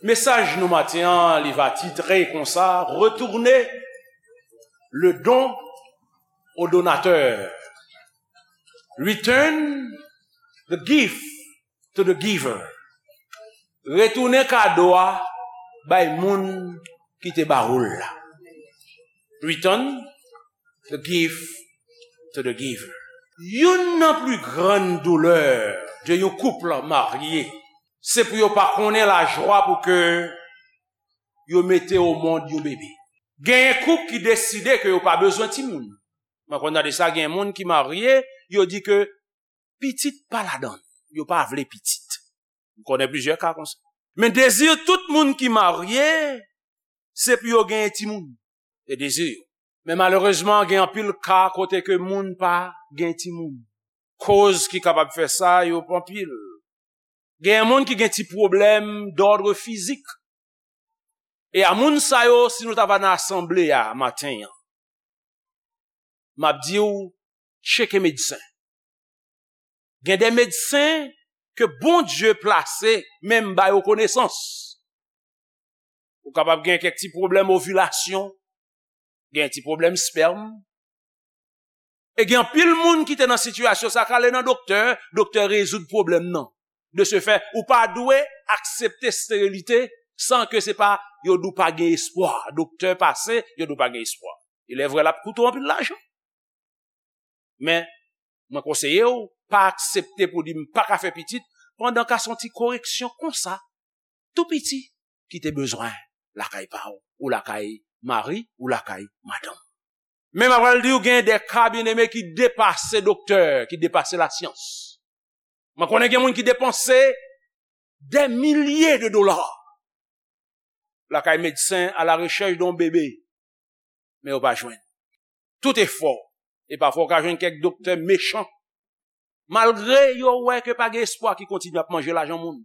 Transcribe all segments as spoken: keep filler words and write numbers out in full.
Mesaj nou maten an, li va titre konsa, Retournez le don au donateur. Return the gift to the giver. Retounen kado a bay moun ki te ba ou l la. Return the gift to the giver. Youn nan pli grann doulè de yon koup marye, se pou yo pa konnen lajwa pou ke yo mete o mond yon bebe. Genyen koup ki deside ke yo pa bezwen timoun. Mwen konn tande sa, gen moun ki marye, yo di ke pitit pa ladan l, yo pa vle pitit. M konnen plizyè ka konsa. Men dezi tout moun ki marye, se pou yo genyen timoun. Se dezi yo. Men malerezman, gen anpil ka kote ke moun pa gen timoun. Koz ki kapab fè sa, yo anpil. Gen moun ki gen ti pwoblèm dòdre fizik. E a moun sa yo, si nou ta va nan asanble a maten an, m ap di w, tcheke medsen. Gen de medsen ke Bondye plase, menm ba yo konesans. Ou kapab gen kèk ti pwoblèm ovilasyon, gen ti pwoblèm spèm. E gen anpil moun ki te nan sitiyasyon sa, k ale nan doktè, doktè rezoud pwoblèm nan. De ce fait, ou pa dwe aksepte sterilite san ke se pa yo di w pa gen espwa. Doktè pase, yo di w pa gen espwa. Il est vrai, l ap koute w anpil lajan. Men, mwen konseye w, pa aksepte pou di m pa ka fè pitit, pandan ka se yon ti koreksyon konsa, tou piti, ki te bezwen lakay pa w, ou lakay mari, ou lakay madanm. Men m ap pral di w, gen de ka, byeneme, ki depase doktè, ki depase lasyans. Mwen konnen gen moun ki depanse des milliers de dollars lakay medsen à la recherche d'un bébé, men yo pa jwenn. Tout efò, e pafwa w ka jwenn kèk doktè mechan, malgre yo wè ke pa gen espwa, ki kontinye ap manje lajan moun.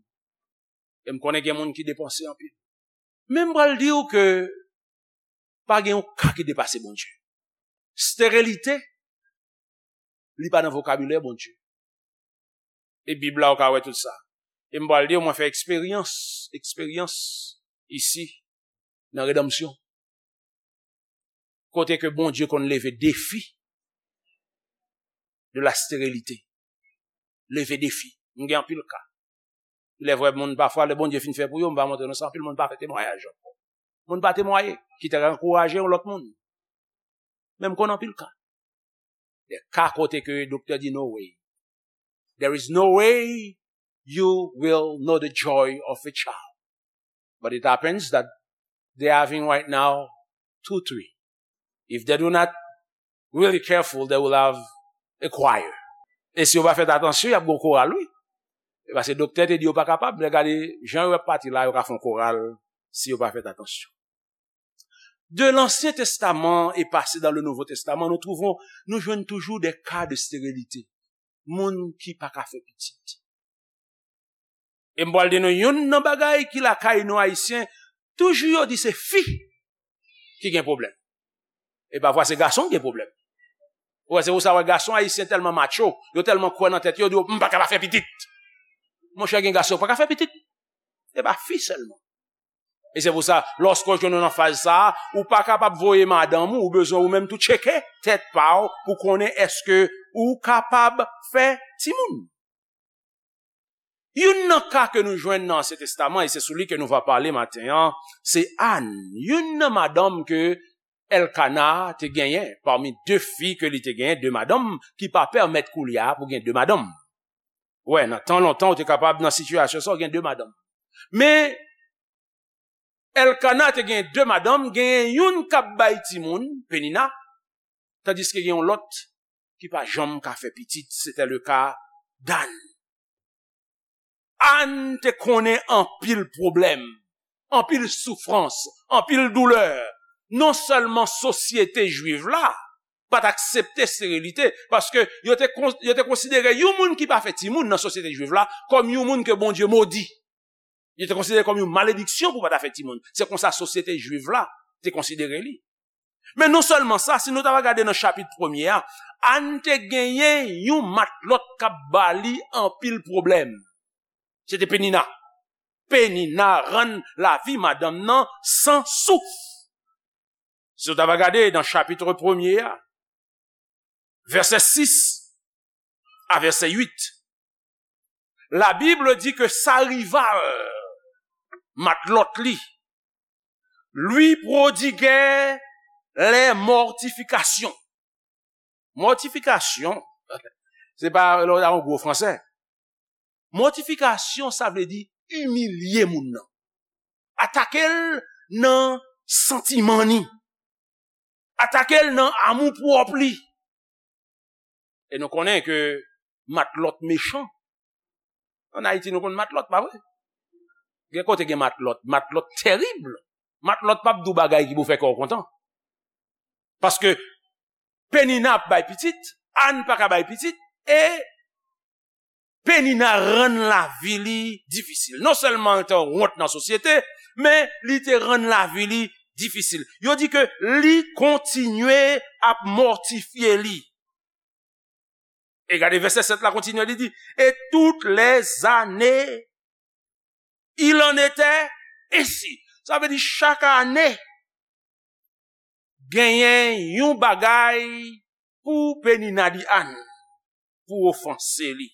E m konnen gen moun ki depanse anpil. Men m pral di w ke pa gen yon ka ki depase Bondye. Sterilite, li pa nan vokabilè Bondye. E Bib la, ou ka wè tout sa. E m pral di w, mwen fè eksperyans, eksperyans isi, nan redanmsyon. Kote ke Bondye konn leve defi de la sterilite. Leve defi. M gen anpil ka. Il est vrai, moun pafwa, lè Bondye fin fè pou yo, m pa montre nou sa, anpil moun pa fè temwayaj ankò. Moun pa temwaye, kite ankouraje yon lòt moun. Men m konn anpil ka. De ka kote ke doktè di no way. There is no way you will know the joy of a child. But it happens that they're having right now two, three. If they do not really careful, they will have a choir. E si yo pa fè atansyon, y ap gen koral, wi. E paske doktè te di yo pa kapab, men gade jan yo ap pati la, yo ka fè yon koral si yo pa fè atansyon. De l'Ancien Testament et passé dans le Nouveau Testament, nous trouvons, nou jwenn toujou de ka de sterilite. Moun ki pa ka fè pitit. E m pral di nou youn nan bagay ki lakay nou Ayisyen, toujou yo di se fi ki gen pwoblèm. E pafwa se gason ki gen pwoblèm. Ou wè, se pou sa wè gason ayisyen tèlman macho, yo tèlman kwè nan tèt yo, yo di yo, "M pa ka pa fè pitit." Monchè, gen gason ki pa ka fè pitit. E pa fi sèlman. E se pou sa, lòske w jwenn ou nan faz sa a, ou pa kapab voye madanm ou, ou bezwen ou menm tou tcheke tèt pa w pou konnen èske ou kapab fè timoun. Youn nan ka ke nou jwenn nan Ansyen Testaman, e se sou li ke nou va pale maten an, se Ann, youn nan madanm ke Èlkana te genyen, pami de fi ke li te genyen, de madanm, ki pa pèmèt koulye a pou gen de madanm. Wè, nan tan lontan, ou te kapab nan sitiyasyon sa, ou gen de madanm. Men, Èlkana te gen de madanm, genyen youn k ap bay timoun, Penina, tandiske gen yon lòt ki pa janm ka fè pitit, se te le ka d'Ann. Ann te konnen anpil pwoblèm, anpil soufrans, anpil doulè. Non sèlman sosyete jwiv la pa t aksepte sterilite, paske yo te kon-, yo te konsidere yon moun ki pa fè timoun nan sosyete jwiv la kòm yon moun ke Bondye modi. Yo te konsidere kòm yon malediksyon pou pa ta fè timoun. Se konsa sosyete jwiv la te konsidere li. Men non sèlman sa, si nou ta va gade nan chapit premye a, Ann te genyen yon matlòt k ap ba li anpil pwoblèm. Se te Penina. Penina rann lavi madanm nan san souf. Si w ta va gade nan chapit premye a, vèsè sis a vèsè uit, la Bible di ke sa rival matlòt li lui prodiguait les mortifications. Mòtifikasyon, se pa lè w ta yon gwo fransè. Mòtifikasyon, sa vle di imilye moun nan. Atake l nan santiman ni. Atake l nan amou pwòp li. E nou konnen ke matlòt mechan. Ann Ayiti, nou konn matlòt, pa vre? Gen kote gen matlòt, matlòt tèrib. Matlòt p ap di w bagay ki pou fè kè w kontan. Paske Penina ap bay pitit, Ann pa ka bay pitit, e Penina rann lavi li difisil. Non sèlman l te wont nan sosyete, men li te rann lavi li difisil. Yo di ke li kontinye ap mòtifye li. E gade vèsè sèt la kontinye, li di, et toutes les années, il en était ainsi. Sa vle di chak ane, genyen yon bagay pou Penina di Ann, pou ofanse li.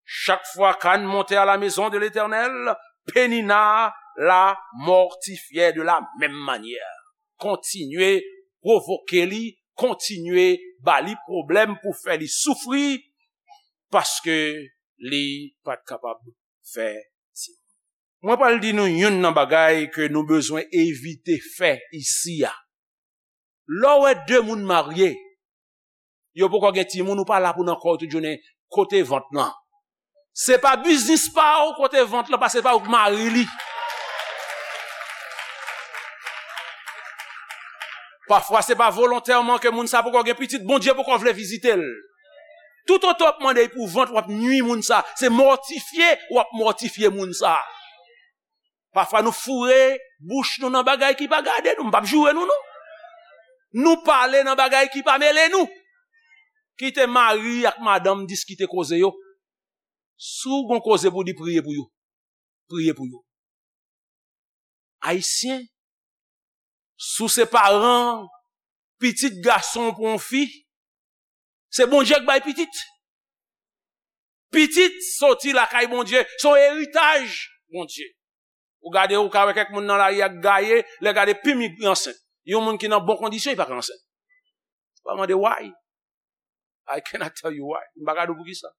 Chaque fois qu'Anne montait à la maison de l'Éternel, Penina la mortifiait de la même manière. Kontinye pwovoke li, kontinye ba li pwoblèm pou fè li soufri, paske li pa t kapab fè timoun. Mwen pral di nou youn nan bagay ke nou bezwen evite fè isi a. Lè w wè de moun marye, yo poko gen timoun, ou pa la pou nan kò yo tout jounen, kote vant lan? Se pa biznis pa w kote vant lan, paske se pa ou k mari li. Pafwa, se pa volontèman ke moun sa poko gen pitit, Bondye poko vle vizite l. Toutotan w ap mande pou vant, w ap nwi moun sa. Se mòtifye w ap mòtifye moun sa. Pafwa, nou foure bouch nou nan bagay ki pa gade nou. M p ap joure nou, non. Nou pale nan bagay ki pa mele nou. Kite mari ak madanm diskite koze yo. Si w gon koze pou di, priye pou yo. Priye pou yo. Ayisyen, si w se paran pitit gason pou yon fi, se Bondye k bay pitit. Pitit soti lakay Bondye, se yon eritaj Bondye. Ou gade, ou ka wè kèk moun nan lari a k gaye, lè gade pim li ansent. Yon moun ki nan bon kondisyon, li pa ka ansent. Ou pa mande why. I cannot tell you why. M pa ka di w poukisa.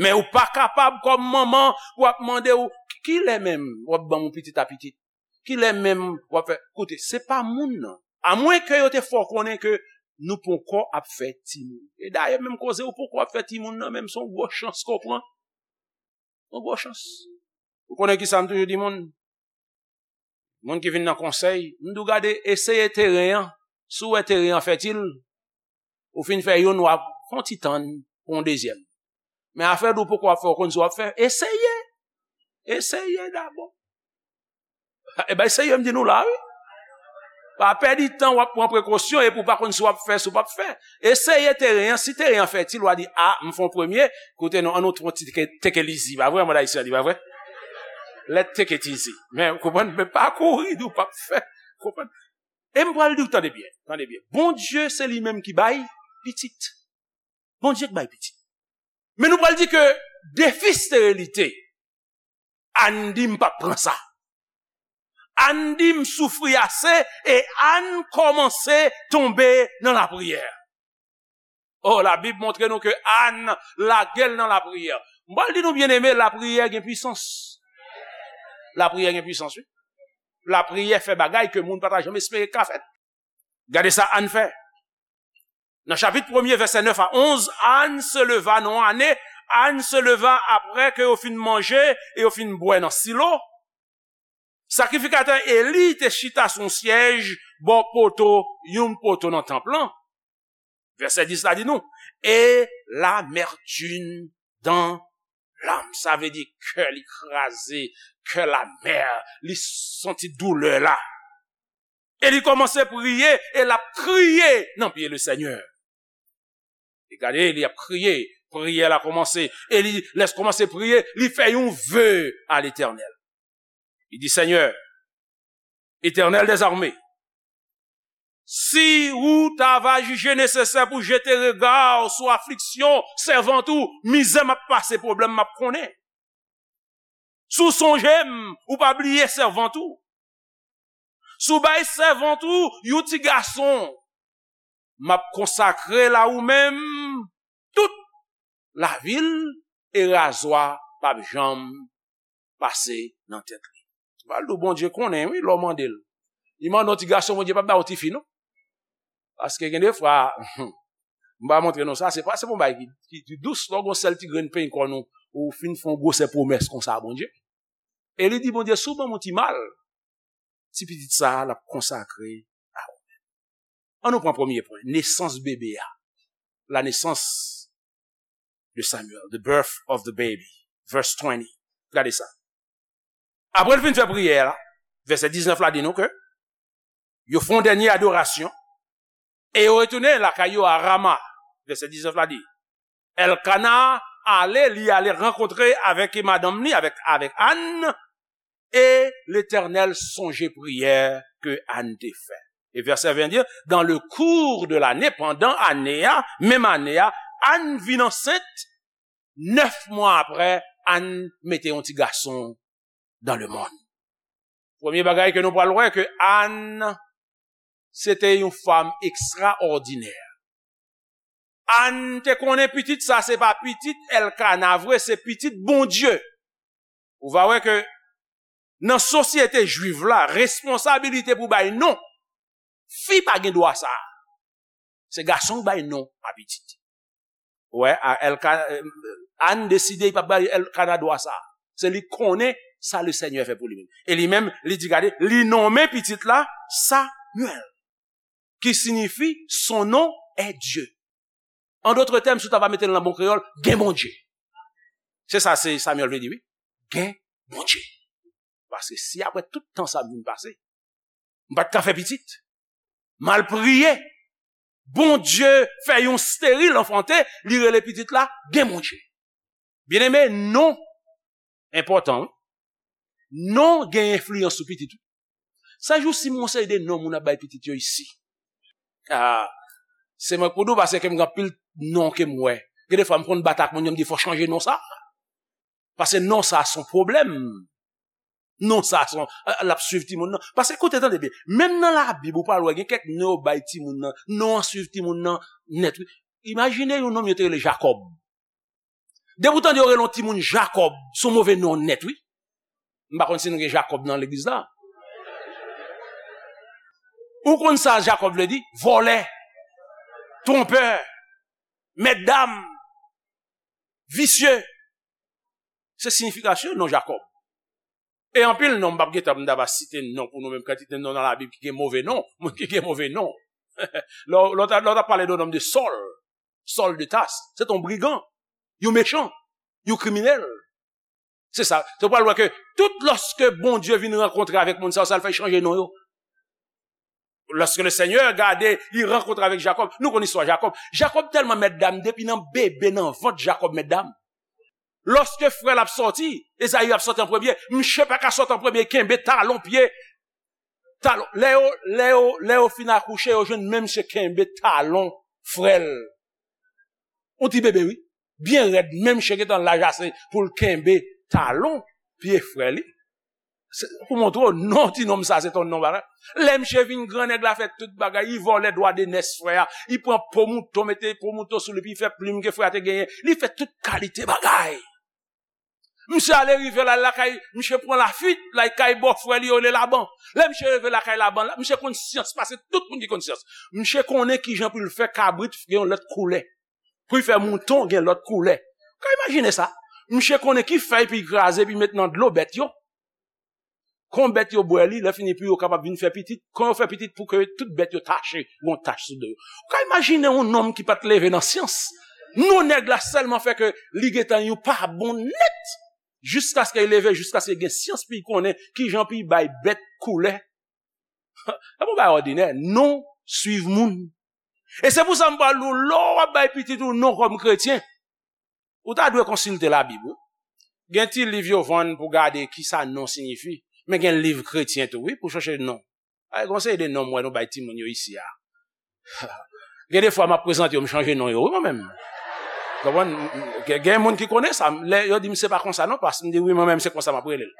Men ou pa kapab kòm manman pou ap mande w, kilè menm w ap ban m yon pitit a pitit? Kilè menm w ap fè? Koute, se pa moun nan. Amwenke yo te fè w konnen ke nou poko ap fè timoun. E dayè, menm koze ou poko ap fè timoun nan, menm se yon gwo chans ke w pran. Yon gwo chans. Ou konnen kisa m toujou di moun? Moun ki vin nan konsèy, m di w gade, eseye teren an. Si w wè teren an fètil, ou fin fè youn, w ap fè yon ti tann pou yon dezyèm. Men afè di w poko ap fè, ou konn si w ap fè, eseye. Eseye dabò. E bay serye m di nou la, wi. Pa pèdi tan w ap pran prekosyon epi w pa konn si w ap fè, si w p ap fè. Eseye teren an, si teren an fètil, w a di, a, m fè yon premye, koute non, ann nou fè yon ti take, take it easy, pa vre, mòd ayisyen an di, pa vre? Let's take it easy. Men, w konprann? Men pa kouri, di w p ap fè. Konprann? E m pral di w, tande byen, tande byen. Bondye, se li menm ki bay pitit. Bondye k bay pitit. Men nou pral di ke defi sterilite, Ann di m p ap pran sa. Ann di m soufri ase e Ann kòmanse tonbe nan lapriyè. Oh, Labib montre nou ke Ann lage l nan lapriyè. M pral di nou, byeneme, lapriyè gen pwisans. Lapriyè gen pwisans, wi. Lapriyè fè bagay ke moun pa ta janm espere k ka fèt. Gade sa Ann fè. Nan chapit premye, vèsè nèf a onz, Ann se leva, nan yon ane, Ann se leva apre ke yo fin manje e yo fin bwè nan Silo. Sakrifikatè Eli te chita sou yon syèj bò poto, yon poto nan tanp lan. Vèsè dis la di nou, et l'amertume dans l'âme. Sa vle di kè li kraze, kè l amè, li santi doulè la. E li kòmanse priye, e l ap kriye nan pye Lesenyè. E gade, li ap kriye, priyè la kòmanse. E li, lè l kòmanse priye, li fè yon ve a Letènèl. Li di, Seigneur, Éternel des armées, si ou ta va jije nesesè pou jete rega w sou afliksyon sèvant ou, mizè m ap pase, pwoblèm m ap konnen. Si w sonje m, ou pa bliye sèvant ou. Si w bay sèvant ou yon ti gason, m ap konsakre l a ou menm tout lavi l, e razwa p ap janm pase nan tèt li. Pral di w Bondye konnen, wi, lè w mande l. Li mande yon ti gason, Bondye p ap ba w tifi, non. Paske gen de fwa, m pa montre nou sa, se pa, se pa yon bagay ki, ki, ki dous, lè w gon sèl ti grenn penyen kòn ou, ou fin fè yon gwosè pwomès konsa a Bondye. E li di Bondye, si w ban m yon ti mal, ti pitit sa a, l ap konsakre a ou. An nou pran premye pwen, nesans bebe a. La naissance de Samuel, the birth of the baby. Verse twenty. Gade sa. Apre l fin fè priyè la, vèsè diznèf la di nou ke yo fè yon dènye adorasyon e yo retounen lakay yo a Rama. Vèsè diznèf la di, Elkana ale, li ale rankontre avèk madanm li, avèk, avèk Ann, e Letènèl sonje priyè ke Ann te fè. E vèsè ven di, dans le cours de l'année, pandan ane a, menm ane a, Ann vin ansent, nèf mwa apre, Ann mete yon ti gason dans le monde. Premye bagay ke nou pral wè, ke Ann, se te yon fanm ekstraòdinè. Ann te konnen pitit sa, se pa pitit Elkana vre, se pitit Bondye. Ou va wè ke nan sosyete jwif la, responsabilite pou bay non, fi pa gen dwa sa. Se gason ki bay non a pitit. Wè, a, Elka-, Ann deside li p ap bay Elkana dwa sa. Se li konnen sa Lesenyè fè pou li menm. E li menm, li di, gade, li nonmen pitit la Samuel, ki siyifi son nom est Dieu. An dòt tèm, si w ta va mete l nan bon kreyòl, gen Bondye. Se sa se Samuel vle di, wi. Gen Bondye. Paske si apre tout tan sa m vin pase, m pa t ka fè pitit, m al priye, Bondye fè yon steril anfante, li rele pitit la gen Bondye. Byeneme, non enpòtan, wi. Non gen enfliyans sou pitit ou. Sa jou si m gon seri de non moun ap bay pitit yo isi. Ah, se mwen k pou di w, paske m gen anpil non ke m wè. Gen de fwa m konn bat ak moun yo, m di fò chanje non sa. Paske non sa se yon pwoblèm. Non sa se yon, l ap swiv timoun nan. Paske koute, tande byen, menm nan Labib ou pral wè gen kèk non yo bay timoun nan, non an swiv timoun nan nèt, wi. Imajine yon nonm yo te rele Jakòb. Depi w tande yo rele yon timoun Jakòb, se yon move non nèt, wi. M pa konn si nou gen Jakòb nan legliz la. Ou konn sa Jakòb vle di? Vòlè, twonpè, mètdam, visye. Se siyifikasyon non Jakòb. E anpil non, m p ap gentan, m ta va site non pou nou menm, kantite non nan Labib ki gen move non, moun ki gen move non. Lè w, lè w ta, lè w ta pale de yon nonm de Sòl, Sòl de Tas, se te yon brigan, yon mechan, yon kriminèl. Se sa. Se w pral wè ke tout lòske Bondye vin rankontre avèk moun sa yo, sa l fè chanje non yo. Lòske Lesenyè gade, li rankontre avèk Jakòb. Nou konn istwa Jakòb. Jakòb tèlman mètdam, depi nan bebe nan vant Jakòb mètdam. Lòske frè l ap sòti, Ezayi ap sòti an premye, msye pa ka sòti an premye, kenbe talon pye. Talon. Lè yo, lè yo, lè yo fin akouche, yo jwenn menm msye kenbe talon frè l. Yon ti bebe, wi. Byen rèd, menm msye gentan laj ase pou l kenbe talon pye frè li. Se, pou montre w, non, ti nonm sa, se ton non bagay. Lè msye vin gran, nèg la fè tout bagay, li vòlè dwa de nès frè a, li pran po mouton, mete po mouton sou li, epi li fè plim ke frè a te genyen, li fè tout kalite bagay. Msye ale rive la lakay, msye pran lafwit, lakay bòfrè li yo rele Laban. Lè msye rive lakay Laban la, msye konn syans pase tout moun ki konn syans. Msye konnen kijan pou l fè kabrit gen yon lòt koulè. Pou l fè mouton gen lòt koulè. Ou ka imajine sa? Msye konnen ki fèy pou l kraze, pou l met nan dlo bèt yo. Kon bèt yo bwè li, lè fini pou yo kapab vin fè pitit, kon yo fè pitit pou ke tout bèt yo tache, yon tach sou do yo. Ou ka imajine yon nonm ki pa t leve nan syans. Non nèg la sèlman fè ke li gentan yon pa bon nèt. Jiskaske li leve, jiskaske li gen syans pou li konnen kijan pou li bay bèt koulè. E pa yon bagay òdinè, non swiv moun. E se pou sa m pral di w, lè w ap bay pitit ou non kòm kretyen, ou ta dwe konsilte Labib, wi. Gen ti liv yo vann pou gade kisa non siyifi. Men gen liv kretyen tou, wi, pou chanje non. Ay, gon seri de non m wè nou bay timoun yo isi a. Gen de fwa m ap prezante yo, m chanje non yo, wi, mwen menm. Konprann? M, m, gen, gen moun ki konnen sa. Lè yo di m se pa konsa non, pas, m di wi, mwen menm se konsa m ap rele l.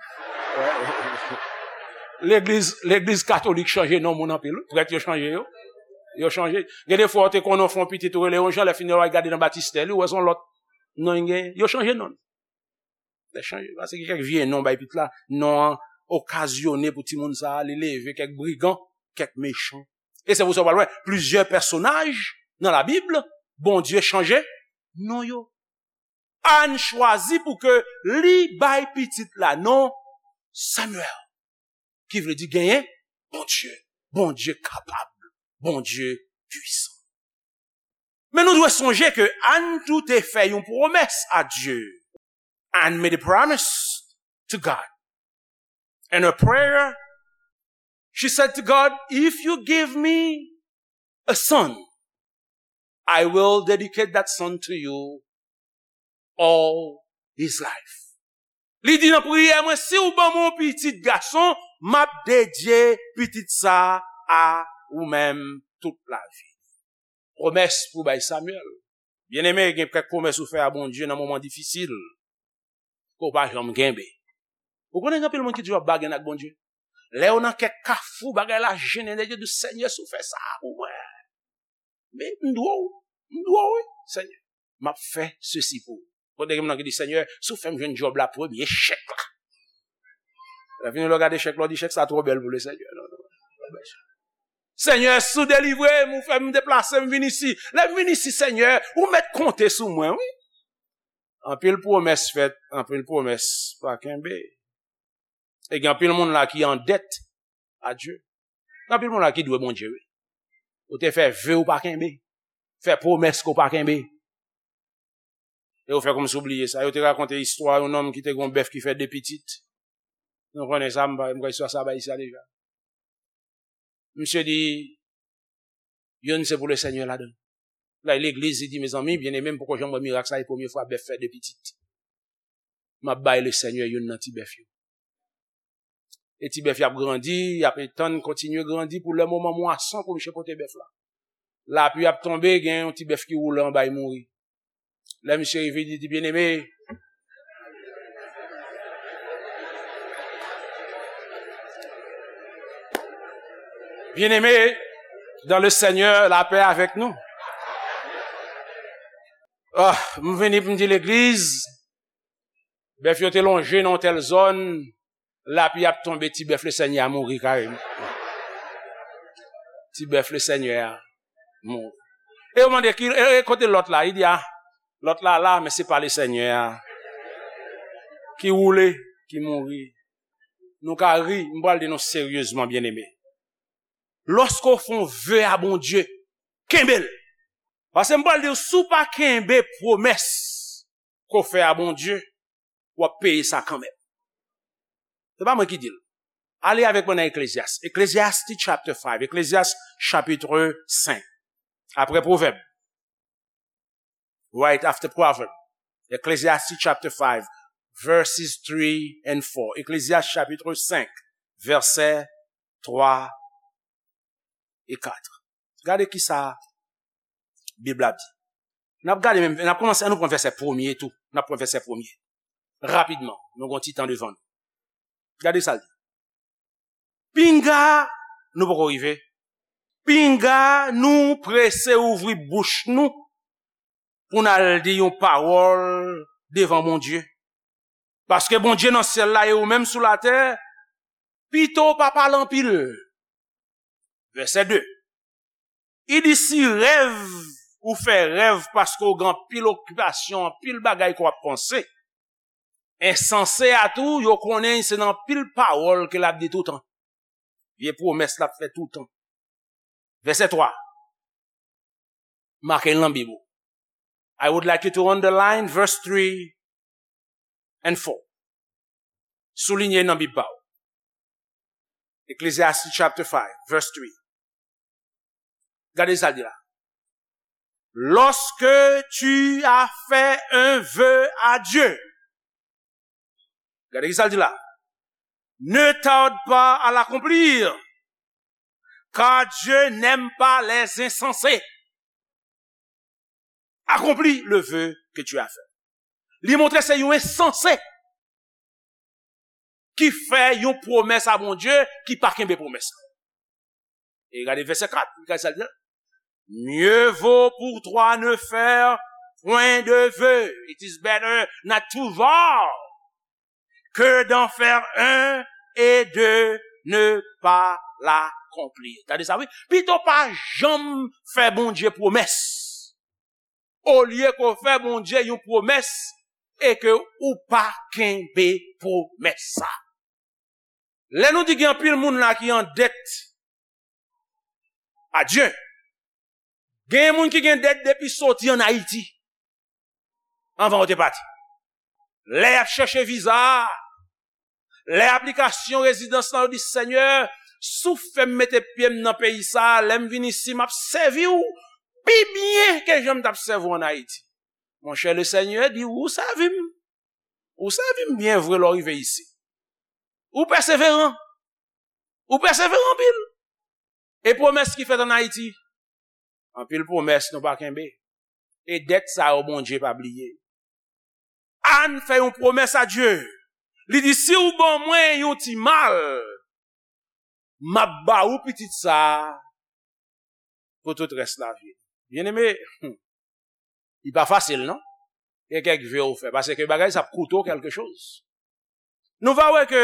Legliz, legliz katolik chanje non moun anpil, wi. Prèt yo chanje yo. Yo chanje. Gen de fwa ou te konnen w fè yon pitit ou rele yon jan, lè fini w al gade nan batistè li, ou wè se yon lòt non li gen. Yo chanje non. Lè chanje. Paske gen kèk vye non bay pitit la, non an okazyone pou timoun sa a, li leve kèk brigan, kèk mechan. E se pou sa w pral wè, plizyè pèsonaj nan Labib, Bondye chanje non yo. Ann chwazi pou ke li bay pitit la non Samuel, ki vle di genyen Bondye, Bondye kapab, Bondye pwisan. Men nou dwe sonje ke Ann tou te fè yon pwomès a Dye. Ann made a promise to God. In her prayer, she said to God, "If you give me a son, I will dedicate that son to you all his life." Li di nan priyè mwen, "Si w ban mwen yon pitit gason, m ap dedye pitit sa a ou menm tout lavi." Pwomès pou bay Samuel. Byeneme, gen kèk pwomès ou fè a Bondye nan moman difisil ke w pa janm kenbe. Ou konnen gen anpil moun ki toujou ap bagen ak Bondye. Lè yo nan kèk kafou, bagay la jennen, yo di, "Senyè, si w fè sa pou mwen, men m dwe w, m dwe w, wi, Senyè. M ap fè sesi pou ou." Kote gen moun ki di, "Senyè, si w fè m jwenn djòb la, premye chèk la." Lè fini, lè w gade chèk la, w di, "Chèk sa twò bèl pou Lesenyè." Non, non, non. "Senyè, si w delivre m, ou fè m deplase, m vin isi. Lè m vin isi, Senyè, ou mèt konte sou mwen, wi." Anpil pwomès fèt, anpil pwomès pa kenbe. E gen anpil moun la ki an dèt a Dye. Gen anpil moun la ki dwe Bondye, wi. Ou te fè ve ou pa kenbe. Fè pwomès ke w pa kenbe. E ou fè kòmsi w bliye sa. Yo te rakonte istwa yon nonm ki te gen yon bèf ki fè de pitit. Nou konnen sa, m pa, m kwè istwa sa bay isi a deja. Misye di, "Youn se pou Lesenyè ladan l." Lè legliz, li di, "Mezanmi, byeneme, m poko janm wè mirak sa, e premye fwa bèf fè de pitit. M ap bay Lesenyè youn nan ti bèf yo." E ti bèf y ap grandi, y ap etann, kontinye grandi pou lè moman mwason pou misye pote bèf la. Lapli ap tonbe, gen yon ti bèf ki woule anba, li mouri. Lè misye rive, li di, "Byeneme, byeneme, dans le Seigneur, la paix avec nous." Ah, m vini pou m di legliz, bèf yo te lonje nan yon tèl zòn, lapli ap tonbe, ti bèf Lesenyè a mouri kareman. Ti bèf Lesenyè a mouri. E yo mande, "Ki, e, e kote lòt la?" Li di, "A, lòt la la, men se pa Lesenyè a ki woule, ki mouri." Nou ka ri, m pral di nou seryezman, byeneme. Lòske w fè yon ve a Bondye, kenbe l. Paske m pral di w, si w pa kenbe pwomès ke w fè a Bondye, w ap peye sa kanmenm. Se pa mwen ki di l. Ale avèk mwen nan Ecclesiastes. Ecclesiastes chapter five. Ecclesiastes chapitre cinq. Apre Pwovèb. Right after Proverbs. Ecclesiastes chapter five, verses three and four. Ecclesiastes chapitre cinq, vèsè twa e kat. Gade kisa Bib la di. N ap gade menm, n ap kòmanse, an nou pran vèsè premye tou. N ap pran vèsè premye. Rapidman, nou gen yon ti tan devan nou. Gade sa l di. Pinga, nou poko rive. Pinga nou prese ouvri bouch nou pou n al di yon pawòl devan Bondye. Paske Bondye nan syèl la e ou menm sou latè, pito w pa pale anpil. Vèsè de. Li di, si rèv, ou fè rèv paske w gen anpil okipasyon, anpil bagay ke w ap panse. Ensanse a tou, yo konnen se nan anpil pawòl ke l ap di toutan. Vye pwomès l ap fè toutan. Vèsè twa. Make l nan Bib ou. I would like you to underline verse three and four. Soulinye nan Bib pa w. Ecclesiastes chapter five, verse three. Gade sa l di la. Lorsque tu as fait un vœu à Dieu. Gade ki sa l di la. Ne tarde pas à l'accomplir, car Dieu n'aime pas les insensés. Accomplis le vœu que tu as fait. Li montre se yon ensanse ki fè yon pwomès a Bondye ki pa kenbe pwomès la. E gade vèsè kat, gade sa l di la. Mieux vaut pour toi ne faire point de vœu. It is better not to vow que d'en faire un et de ne pas l'accomplir. Tande sa, wi. Pito pa janm fè Bondye pwomès. Olye ke w fè Bondye yon pwomès e ke ou pa kenbe pwomès sa. Lè nou di gen anpil moun la ki an dèt a Dye, gen moun ki gen dèt depi soti ann Ayiti, anvan yo te pati. Lè y ap chèche viza, lè aplikasyon rezidans lan, yo di, Senyè, si w fè m mete pye m nan peyi sa a, lè m vin isi, m ap sèvi w pi byen ke jan m t ap sèvi w ann Ayiti. Monchè, Lesenyè di, ou sèvi m. Ou sèvi m byen vre lè w rive isi. Ou pèseveran. Ou pèseveran anpil. E pwomès ki fèt ann Ayiti, anpil pwomès nou pa kenbe. E dèt sa yo, Bondye pa bliye. Ann fè yon pwomès a Dye. Li di, si w ban mwen yon ti mal, m ap ba ou pitit sa a pou tout rès lavi l. Byeneme, li pa fasil, non? Gen kèk ve w fè, paske bagay sa ap koute w kèlke choz. Nou va wè ke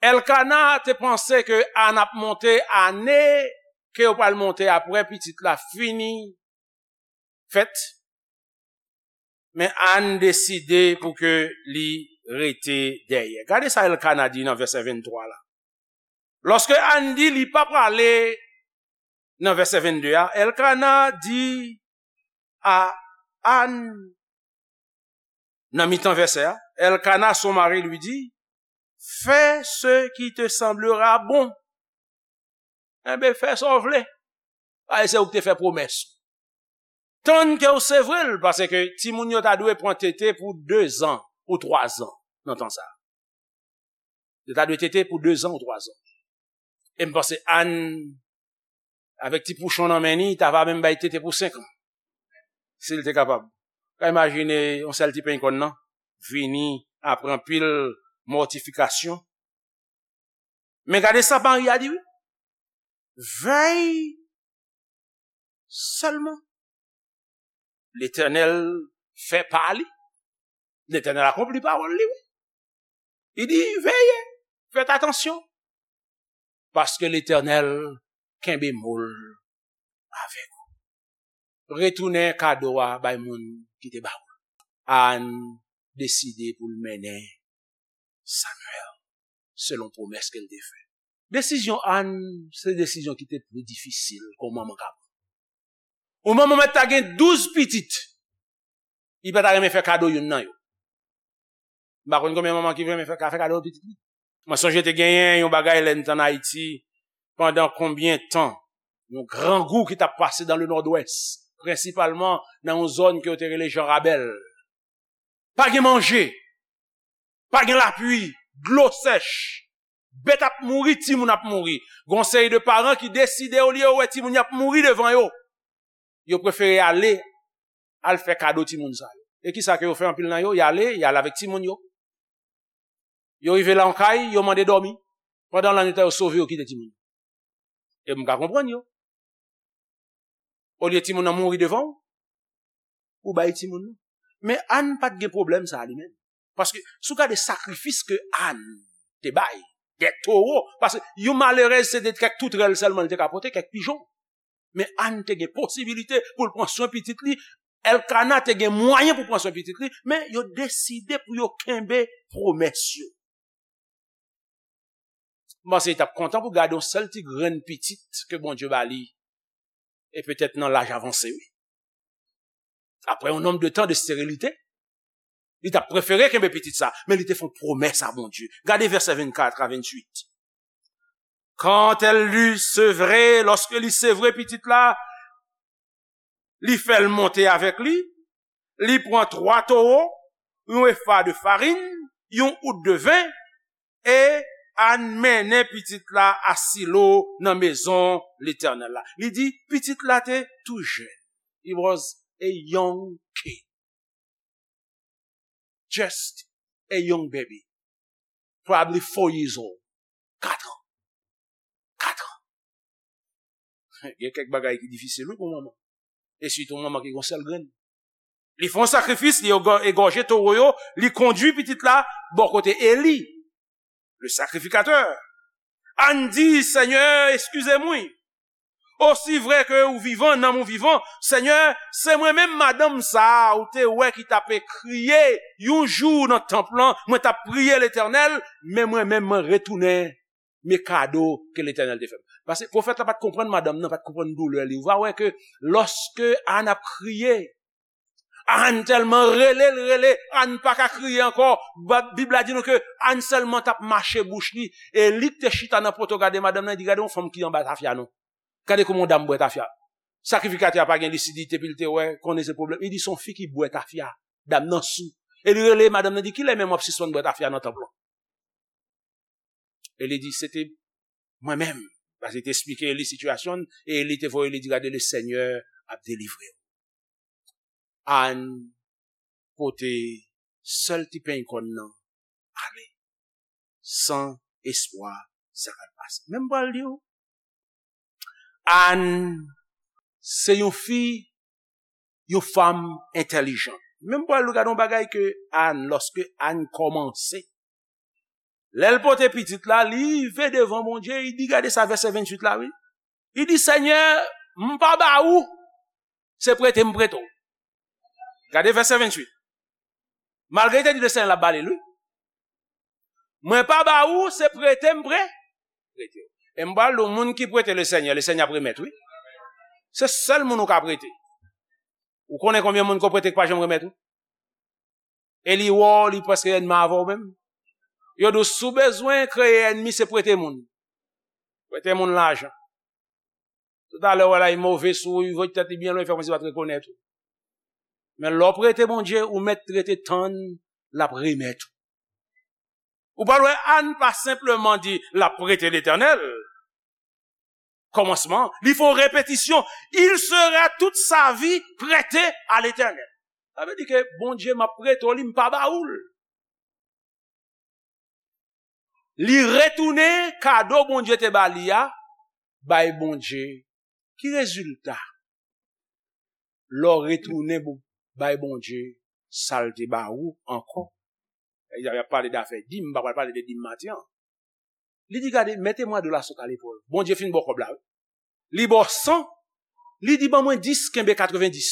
Elkana te panse ke Ann ap monte ane ke yo pral monte apre pitit la fini fèt, men Ann deside pou ke li rete dèyè. Gade sa Elkana di nan vèsè venntwa la. Lòske Ann di li pa prale nan vèsè vennde a, Elkana di a Ann, nan mitan vèsè a, Elkana, son mari, lui dit, fais ce qui te semblera bon. Enben, fè sa w vle. Paske se ou ki te fè pwomès. Tann ke w sevre l, paske timoun yo ta dwe pran tete pou de zan ou twa zan nan tan sa a. Yo ta dwe tete pou de zan ou twa zan. E m panse Ann, avèk ti pouchon nan men li, ta va menm bay tete pou senk an. Si l te kapab. Ka imajine yon sèl ti penny kòn nan vini apre anpil mòtifikasyon. Men gade sa Mari a di, wi. Vèy sèlman. Letènèl fè pa li. Letènèl akonpli pawòl li, wi. Li di, veye, fèt atansyon. Paske Letènèl kenbe mo l avèk ou. Retounen kado a bay moun ki te ba ou l. Ann deside pou l mennen Samuel selon pwomès ke l te fè. Desizyon Ann, se desizyon ki te pli difisil ke yon manman ka pran. Yon manman mèt ta gen douz pitit, li pa ta renmen fè kado youn nan yo. M pa konn konbyen manman ki renmen fè, ka fè kado pitit li. Mwen sonje te genyen yon bagay lè n t ann Ayiti, pandan konbyen tan, yon grangou ki t ap pase dans le Nord-Ouest, prensipalman nan yon zòn ke yo te rele Jan Rabèl. Pa gen manje, pa gen lapli, dlo sèch, bèt ap mouri, timoun ap mouri. Gon seri de paran ki deside, olye yo wè timoun y ap mouri devan yo, yo prefere ale, al fè kado timoun sa yo. E kisa ke yo fè anpil nan yo? Y ale, y ale avèk timoun yo. Yo rive la yon kay, yo mande dòmi. Pandan lannwit la, yo sove, yo kite timoun yo. E m ka konprann yo. Olye timoun nan mouri devan w, ou bay timoun nan. Men Ann pa t gen pwoblèm sa a li menm. Paske si w gade sakrifis ke Ann te bay, de towo, paske yon malerèz se de kèk toutrèl sèlman li te ka pote, kèk pijon. Men Ann te gen posibilite pou l pran swen pitit li. Elkana te gen mwayen pou pran swen pitit li, men yo deside pou yo kenbe pwomès yo. M panse li t ap kontan pou gade yon sèl ti grenn pitit ke Bondye ba li, e petèt nan laj avanse, wi. Apre yon nonb de tan de sterilite, li t ap prefere kenbe pitit sa, men li te fè yon pwomès a Bondye. Gade vèsè vennkat a vennwit. Quand elle l'eut sevré, lòske li sevre pitit la, li fè l monte avèk li, li pran twa towo, yon efa de farin, yon out de ven, E Ann mennen pitit la a Silo nan mezon Letènèl la. Li di, pitit la te tou jèn. He was a young kid. Just a young baby. Probably four years old. Kat an. Kat an. Gen kèk bagay ki difisil, wi, pou manman. E sitou manman ki gon sèl grenn. Li fè yon sakrifis, li egò-, egòje towo yo, li kondui pitit la bò kote Eli, le sacrificateur. Ann di, Senyè, eskize m, wi. Osi vrè ke ou vivan, nanm ou vivan, Senyè, se mwen menm madanm sa a ou te wè ki t ap kriye yon jou nan tanp lan, mwen t ap priye Letènèl, men mwen menm mwen retounen men kado ke Letènèl te fè m. Paske pwofèt la pa t konprann madanm nan, pa t konprann doulè li. Ou va wè ke lòske Ann ap kriye, Ann tèlman rele l rele, Ann pa ka kriye ankò. Ba-, Bib la di nou ke Ann sèlman t ap mache bouch li, e li k te chita nan poto gade madanm nan, li di, gade yon fanm ki anba tafya non. Gade kòman yon dam bwè tafya. Sakrifikatè a pa gen lisidite, epi l te wè, konnen se pwoblèm. Li di, se yon fi ki bwè tafya. Dam nan sou. E li rele madanm nan, di, kilè menm w ap sispann bwè tafya nan tanp lan? E li di, se te mwen menm. Paske li te esplike li sitiyasyon l, e li te voye li di, gade, le Senyè ap delivre w. Ann pote sèl ti peny kòn nan ale, san espwa sa k al pase. Men m pral di w, Ann se yon fi, yon fanm entèlijan. Men m pral gade yon bagay ke Ann, lòske Ann kòmanse, lè l pote pitit la, li rive devan Bondye, li di, gade sa, vèsè venntuit la, wi. Li di, Senyè, m pa ba ou, se prete m prete w. Gade vèsè venntuit. Malgre li te di le Senyè l ap ba li l, wi. Mwen pa ba ou, se prete m pre-, prete w. E m pral di w, moun ki prete le Senyè, le Senyè ap remèt, wi. Se sèl moun ou ka prete. Ou konnen konbyen moun ke w prete ki pa janm remèt ou? E li wè w, li prèske ènmi avè w menm. Yo di w, si w bezwen kreye ènmi, se prete moun. Prete moun lajan. Toutalè, w wè l ay move sou ou, li voye tèt li byen lwen, li fè kòmsi li pa t rekonèt ou. Men lè w prete Bondye, ou mèt rete tann, l ap remèt ou. Ou pral wè Ann pa senpleman di l ap prete Letènèl. Kòmansman, li fè yon repetisyon. Il sera toute sa vie prêté à l'Éternel. Sa vle di ke Bondye m ap prete w li, m pa ba ou l. Li retounen kado Bondye te ba li a, bay Bondye. Ki rezilta? Lè w retounen pou bay Bondye sa l te ba ou ankò. Y ap pale dafè dim, m pa pral pale de dim maten an. Li di, gade, mettez-moi de la soude à l'épaule. Bondye fin ba w kòb la, wi. Li ba w san, li di, ban mwen dis, kenbe katrevendis.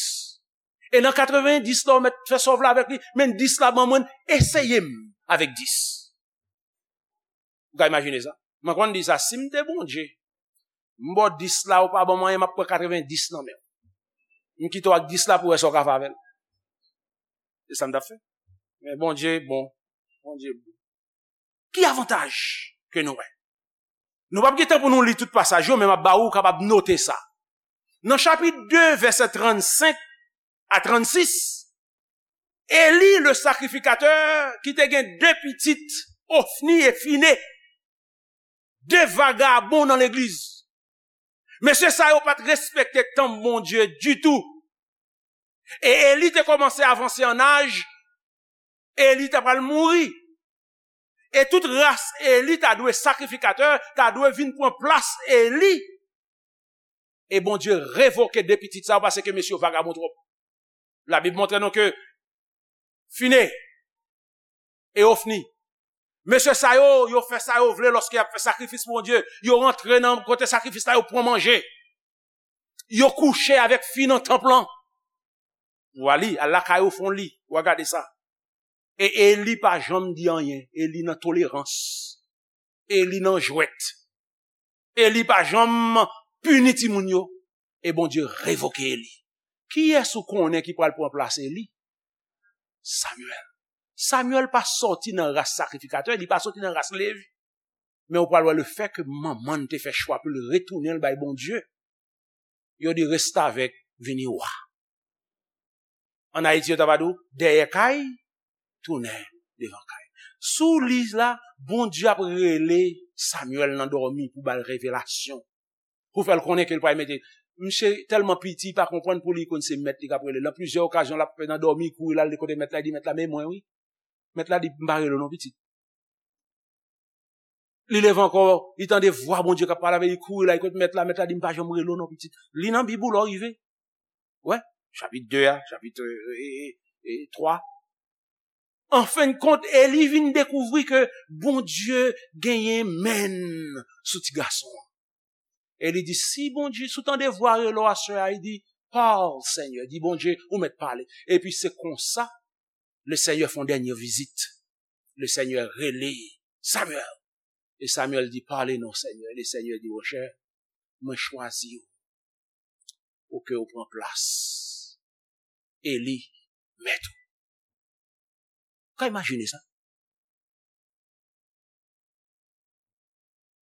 E nan katrevendis la, ou mèt fè sa w vle avèk li, men dis la ban mwen, eseye m avèk dis. Ou ka imajine sa? Mwen konn di sa, si m te Bondye, m ba w dis la, ou pa ban mwen anyen, m ap pran katrevendis nan men w. M kite w ak dis la pou w wè sa w ka fè avè l. Se sa m t ap fè. Men Bondye bon. Bondye bon. Ki avantaj ke nou wè? Nou p ap gen tan pou nou li tout pasaj yo, men m ap ba ou kapab note sa. Nan chapit de, vèsè trannsenk a trannsis, Eli, le sakrifikatè, ki te gen de pitit, Ofni e Fine, de vagabon nan legliz. Mesye sa yo pa t respekte tanp Bondye ditou. E Eli te kòmanse avanse an aj, Eli ta pral mouri. E tout ras Eli ta dwe sakrifikatè, ta dwe vin pran plas Eli. E Bondye revoke de pitit sa yo paske mesye yo vagabon twòp. Labib montre nou ke Fine e Ofni, mesye sa yo, yo fè sa yo vle lòske y ap fè sakrifis pou Bondye. Yo rantre nan kote sakrifis la, yo pran manje. Yo kouche avèk fi nan tanp lan. Ou a li, al lakay ou, fè w li, ou a gade sa. E Eli pa janm di anyen. Eli nan tolerans. Eli nan jwèt. Eli pa janm pini timoun yo. E Bondye revoke Eli. Kiyès ou konnen ki pral pran plas Eli? Samyèl. Samyèl pa sòti nan ras sakrifikatè, li pa sòti nan ras Levi. Men ou pral wè lefètke manman l te fè chwa pou l retounen l bay Bondye, yo di restavèk vini wa. Ann Ayiti, yo ta va di w, dèyè kay, tounen devan kay. Sou li la, Bondye ap rele Samyèl nan dòmi pou ba l revelasyon. Pou fè l konnen ke l pral mete. Misye tèlman piti, li pa konprann pou li konn se mèt li k ap rele l. Nan plizyè okazyon, l ap fè nan dòmi, kouri l al kote mèt la, li di, "Mèt la, men mwen, wi." Mèt la di, "M pa rele w non, pitit." Li leve ankò, li tande vwa Bondye k ap pale avè li, li kouri la, li kot mèt la, mèt la di, "M pa janm rele w non, pitit." Li nan Bib ou lè w rive. Wè, chapit de a, chapit, e, e, e, e, twa. An fen de kont, Eli vin dekouvri ke Bondye genyen men sou ti gason an. Eli di, "Si Bondye, si w tande vwa rele w aswè a," li di, "Pale, Senyè," di Bondye, "ou mèt pale." Epi se konsa, Lesenyè fè yon dènye vizit. Lesenyè rele Samyèl. E Samyèl di, "Pale non, Senyè." Lesenyè di, "Monchè, mwen chwazi w pou ke w pran plas Eli, mèt ou." Ka imajine sa?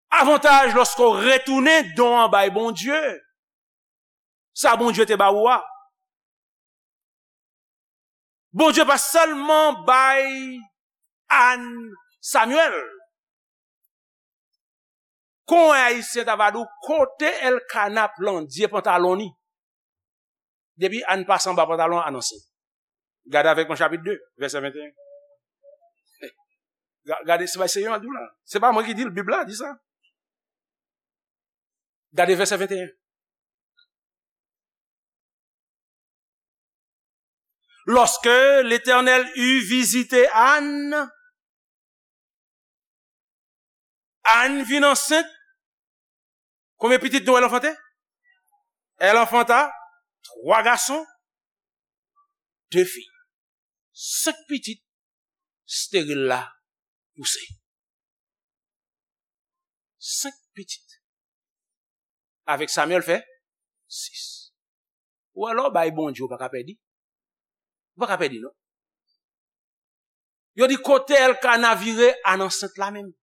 Avantaj lòske w retounen don an bay Bondye. Sa Bondye te ba ou a. Bondye pa sèlman bay Ann Samyèl. Kon Ayisyen ta va di w, kote Elkana plandye pantalon li? Depi Ann pase anba pantalon an, anonse. Gade avèk mwen chapit de, vèsè venteyen. Ga- Gade, se pa Senyè a di w la. Se pa mwen ki di l, Bib la di sa. Gade vèsè venteyen. Lorsque l'Éternel eut visité Anne, Anne vint enceinte. Combien de petits nous elle enfantait? Elle enfanta trois garçons, deux filles. Senk pitit steril la pouse. Senk pitit. Avèk Samyèl fè sis. Ou alò bay Bondye, ou pa ka pèdi. Ou pa ka pèdi, non. Yo di kote Elkana vire, Ann ansent la menm.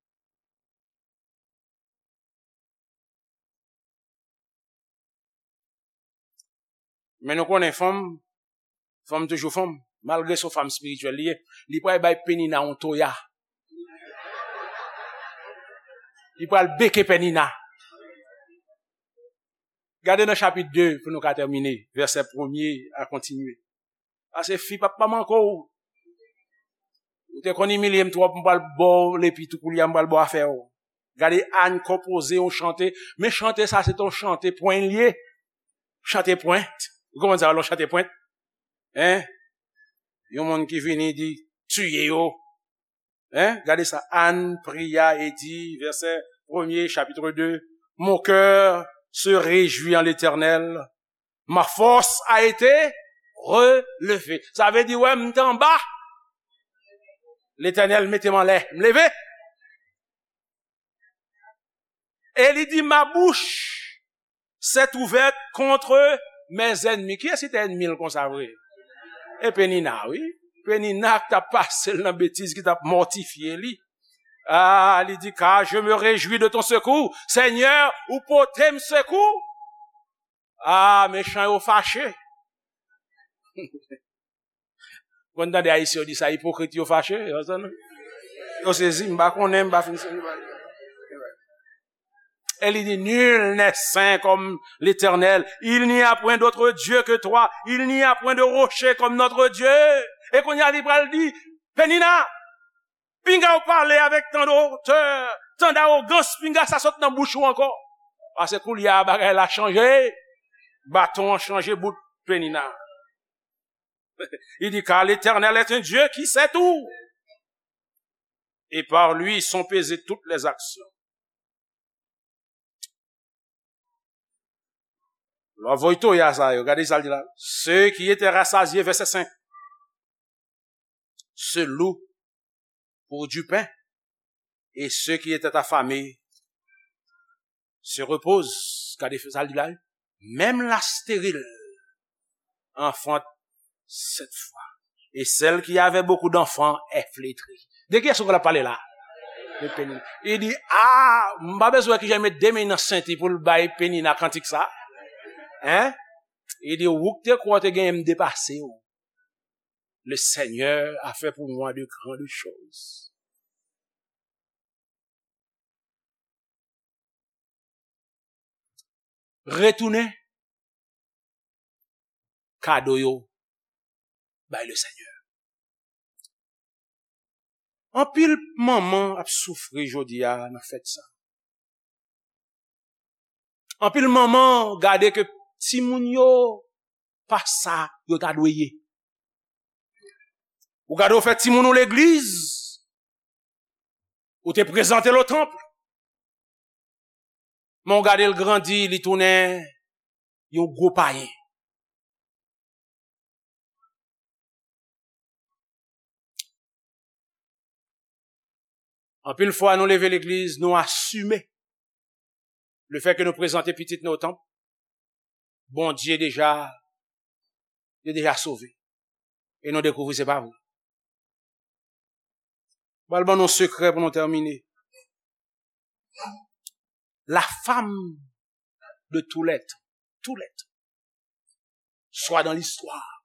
Men nou konnen fanm, fanm toujou fanm. Malgre se yon fanm espirityèl li ye, li pral bay Penina yon toya. Li pral beke Penina. Gade nan chapit de pou nou ka tèmine, vèsè premye a kontinye. Paske fi p ap pa manke w. Ou te konn imilye m twòp, m pral ba w lepi tou koulye a, m pral ba w afè w. Gade Ann konpoze yon chante. Men chante sa, se te yon chante pwen l ye. Chante pwen. Ou konprann sa, yon chante pwen? Hein? Yon moun ki vini di, tiye yo. Hein? Gade sa. Anne pria et dit, verset premier, chapitre deux, mon cœur se réjouit en l'Éternel, ma force a été relevée. Sa vle di, wè, m t anba. Letènèl mete m anlè. M leve. E li di, ma bouche s'est ouverte contre mes ennemis. Kiyès ki te ènmi l konsa vre? E Penina, wi. Penina ki t ap pase l nan betiz, ki t ap mòtifye li. Ah, li di, car je me réjouis de ton secours. Senyè, ou pote m sekou. Ah, mechan yo fache. Konn tande Ayisyen yo di sa, ipokrit yo fache, yo sezi, m pa konnen, m pa fin sezi. E li di, nul n'est saint comme l'Éternel. Il n'y a point d'autre Dieu que toi. Il n'y a point de rocher comme notre Dieu. E kounye a li pral di, Penina, pinga w pale avèk tan de otè, tan dawogans, pinga sa sot nan bouch ou ankò. Paske koulye a bagay la chanje. Baton an chanje bout Penina. Il dit, car l'Éternel est un Dieu qui sait tout. Et par lui sont pesées toutes les actions. Lè w voye toya sa yo, gade sa l di la. Ceux qui étaient rassasiés, verset cinq, se louent pour du pain, et ceux qui étaient affamés se reposent. Gade sa l di la. Même la stérile enfante sept fois. Et celle qui avait beaucoup d'enfants est flétrie. De kiyès ou pral pale la? De Penina. Li di, ah, m pa bezwen wè kijan l met de men nan senti pou l bay Penina kantik sa. Hein? Li di, ou k te kwè w te genyen m depase w. Le Seigneur a fait pour moi de grandes choses. retounen kado yo bay Lesenyè. Anpil manman ap soufri jodi a nan fèt sa. Anpil manman gade ke timoun yo pa sa yo ta dwe ye. Ou gade w fè timoun ou legliz, ou te prezante l o tanp, men w gade l grandi, li tounen yon gwo payen. Anpil fwa nou leve legliz, nou asime lefètke nou prezante pitit nou o tanp, Bondye deja, yo deja sove. E nou dekouvri se pa vre. Pral ban nou sekrè pou nou tèmine. La femme de tout l'être, tout l'être, soit dans l'histoire,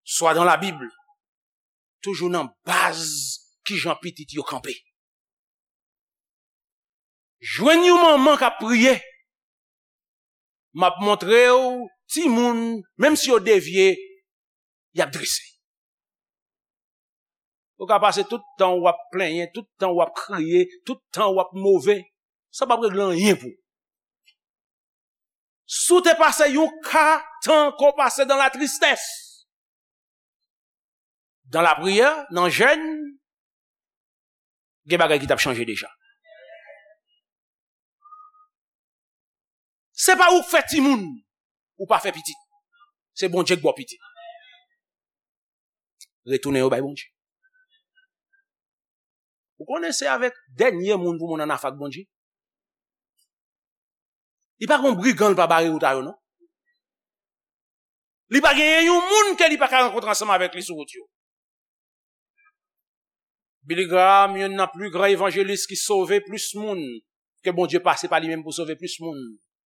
soit dans la Bible, toujou nan baz kijan pitit yo kanpe. Jwenn yon manman k ap priye, m ap montre w timoun, menm si yo devye, y ap drese. Ou ka pase tout tan w ap plenyen, tout tan w ap kriye, tout tan w ap move, sa p ap regle anyen pou ou. Si w te pase yon ka tan ke w pase dans la tristesse, dans la prière, nan jèn, gen bagay ki t ap chanje deja. Se pa ou k fè timoun, ou pa fè pitit. Se Bondye k ba w pitit. Retounen yo bay Bondye. Ou konnen se avèk dènye moun pou moun ann afè ak Bondye. Li pa gen yon brigan l pa bare wout a yo, non. Li pa genyen yon moun ke li pa ka rankontre ansanm avèk li sou wout yo. Billy Graham, youn nan pli gran evanjelis ki sove plis moun, ke Bondye pase pa li menm pou sove plis moun.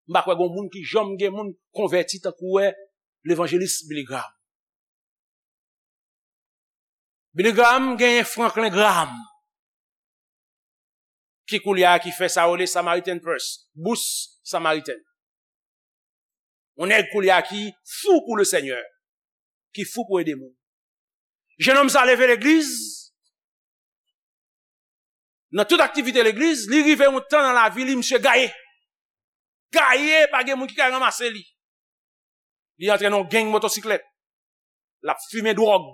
M pa kwè gen moun ki janm gen moun konvèti tankou wè levanjelis Billy Graham. Billy Graham genyen Franklin Graham, ki koulye a ki fè sa yo rele Samaritan Purse, bous Samariten. Yon nèg koulye a ki fou pou Lesenyè, ki fou pou ede moun. Jennonm sa leve legliz, nan tout aktivite legliz, li rive yon tan nan lavi li, misye gaye. Gaye, pa gen moun ki ka ranmase li. Li antre nan yon gang motosiklèt. L ap fimen dwòg.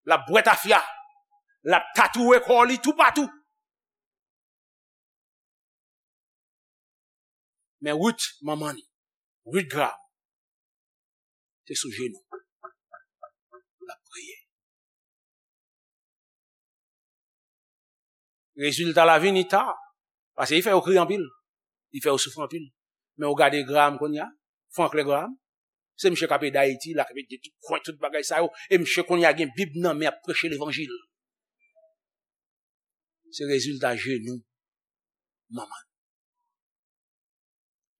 L ap bwè tafya. L ap tatouwe kò li toupatou. Men Ruth, manman li, Ruth Graham, te sou jenou. L ap priye. Rezilta la vini ta, paske li fè yo kriye anpil, li fè yo soufri anpil. Men ou gade Graham kounye a, Franklin Graham, se misye k ap ede Ayiti, l ap ede tout kwen, tout bagay sa yo, e misye kounye a gen Bib nan men, ap preche levanjil. Se rezilta jenou manman.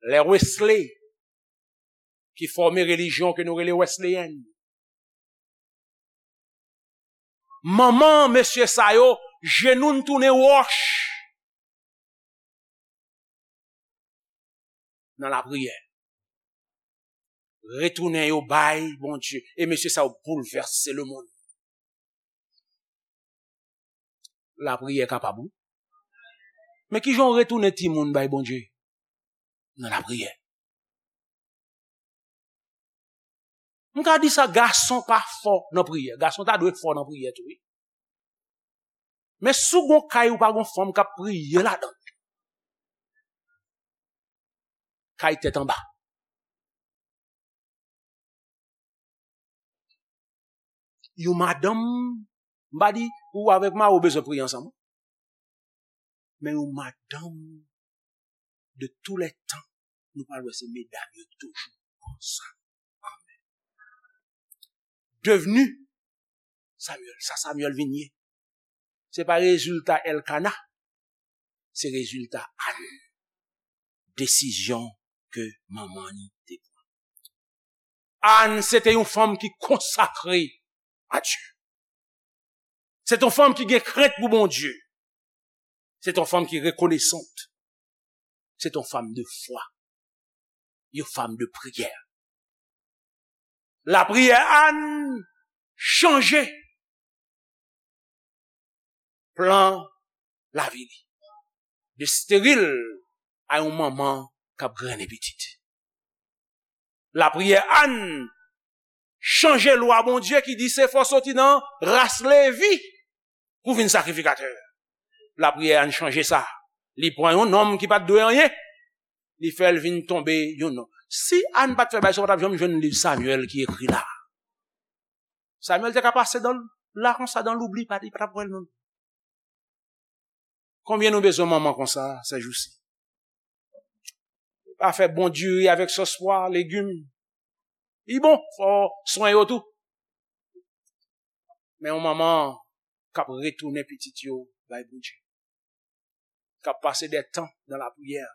Lè Wesley, ki fòme relijyon ke nou rele Wesleyèn. Manman mesye sa yo, jenou n tounen wòch nan lapriyè. Retounen yo bay Bondye. E mesye sa yo boulvèse lemonn. Lapriyè kapab, wi. Men kijan w retounen timoun bay Bondye? Nan lapriyè. M ka di sa, gason pa fò nan priyè. Gason ta dwe fò nan priyè tou, wi. Men si w gon kay ou pa gon fanm k ap priye ladan l, kay tèt anba. Yon madanm, m pa di ou avèk mari w bezwen priye ansanm, men yon madanm de tou lè tan, nou pral wè se medam yo toujou konsa. Devni Samuel, sa Samuel vin ye. Se pa rezilta Elkana, se rezilta Ann. Desizyon ke manman li te pran. Ann se te yon fanm ki konsakre a Dye. Se te yon fanm ki gen krent pou Bondye. Se te yon fanm ki rekonesant. Se te yon fanm de fwa. Une femme de prière. Lapriyè Ann chanje plan lavi li. De steril a yon manman k ap grennen pitit. Lapriyè Ann chanje lwa Bondye ki di se fò soti nan ras Levi pou vin sakrifikatè. Lapriyè Ann chanje sa. Li pran yon nonm ki pa t dwe anyen, li fè l vin tonbe yon nonm. Si Ann pa t fè bagay sa, w pa t ap janm jwenn liv Samyèl ki ekri la. Samyèl te ka pase dan la konsa, dan loubli, pa, li pa t ap wè l menm. Konbyen nou bezwen manman konsa, sèjousi? Pa fè bon diri avèk sòs pwa, legim. Li bon, fò swen yo tou. Men yon manman k ap retounen pitit yo bay Bondye, k ap pase de tan nan lapriyè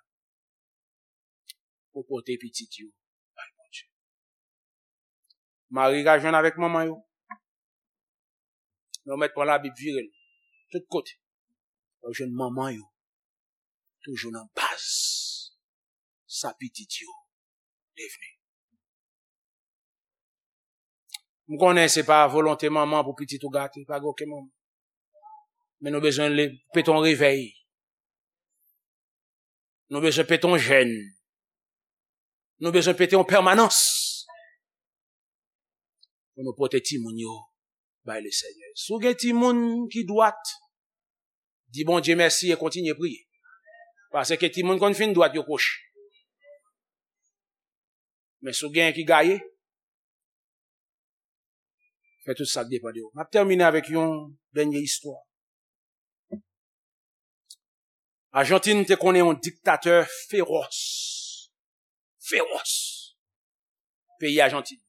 pou pote pitit yo bay Bondye. Mari ka jwenn avèk manman yo. Men yo mèt pran Labib vire l tout kote. Yo jwenn manman yo toujou nan baz sa pitit yo devni. M konnen se pa volonte manman pou pitit ou gate, pa gen okenn manman. Men nou bezwen le, pete yon revèy. Nou bezwen pete yon jèn. Nou bezwen pete yon pèmanans pou nou pote timoun yo bay Lesenyè. Si w gen timoun ki dwat, di Bondye mèsi e kontinye priye. Paske timoun konn fin dwat, yo kwochi. Men si w gen ki gaye, fè tout sa k depann de w. M ap tèmine avèk yon dènye istwa. Ajantin te konnen yon diktatè fewòs. Fewòs. Peyi Ajantin.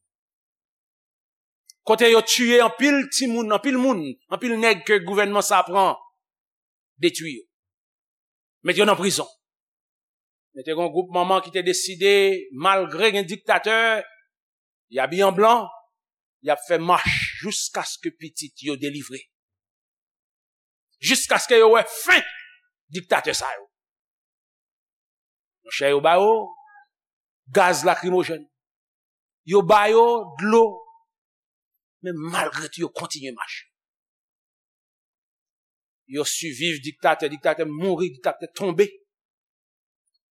Kote yo tiye anpil timoun, anpil moun, anpil nèg ke gouvènman sa pran, detwi yo. Met yo nan prizon. Men te gen yon gwoup manman ki te deside, malgre gen diktatè, y abiye an blan, y ap fè mach jiskaske pitit yo delivre. Jiskaske yo wè fen diktatè sa yo. Monchè, yo ba yo gaz lakrimojèn. Yo ba yo dlo. Men malgre tou, yo kontinye mache. Yo siviv diktatè, diktatè mouri, diktatè tonbe.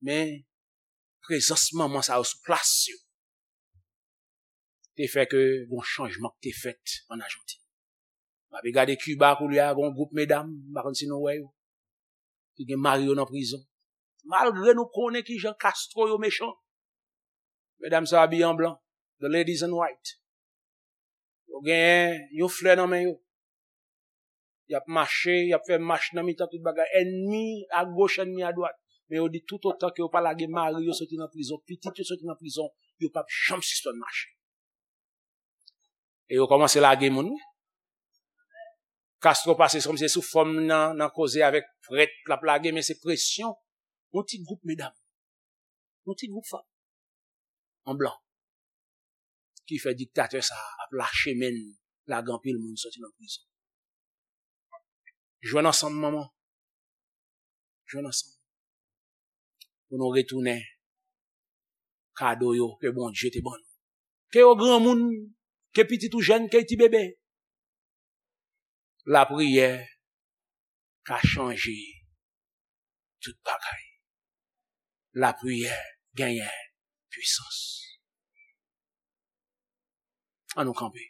Men prezans manman sa yo sou plas yo te fè ke gon chanjman ki te fèt an Ajantin. M ape gade Kiba koulye a, gon gwoup medam, m pa konn si nou wè yo, ki gen mari yo nan prizon. Malgre nou konnen kijan Castro yo mechan, medam sa yo abiye an blan, the ladies in white. Yo genyen yon flè nan men yo. Y ap mache, y ap fè mach nan mitan tout bagay. Ènmi agoch, ènmi adwat. Men yo di toutotan ke yo pa lage mari yo soti nan prizon, pitit yo soti nan prizon, yo p ap janm sispann mache. E yo kòmanse lage moun wi. Castro pase se kòmsi se sou fòm nan, nan koze avèk prèt, l ap lage, men se presyon yon ti gwoup medam, yon ti gwoup fanm an blan ki fè diktatè sa a ap lache men l, lage anpil moun soti nan prizon. Jwenn ansanm, manman. Jwenn ansanm. Pou nou retounen kado yo ke Bondye te ban nou. Ke yo granmoun, ke pitit ou jèn, ke ti bebe. Lapriyè ka chanje tout bagay. Lapriyè genyen pwisans. An nou kanpe.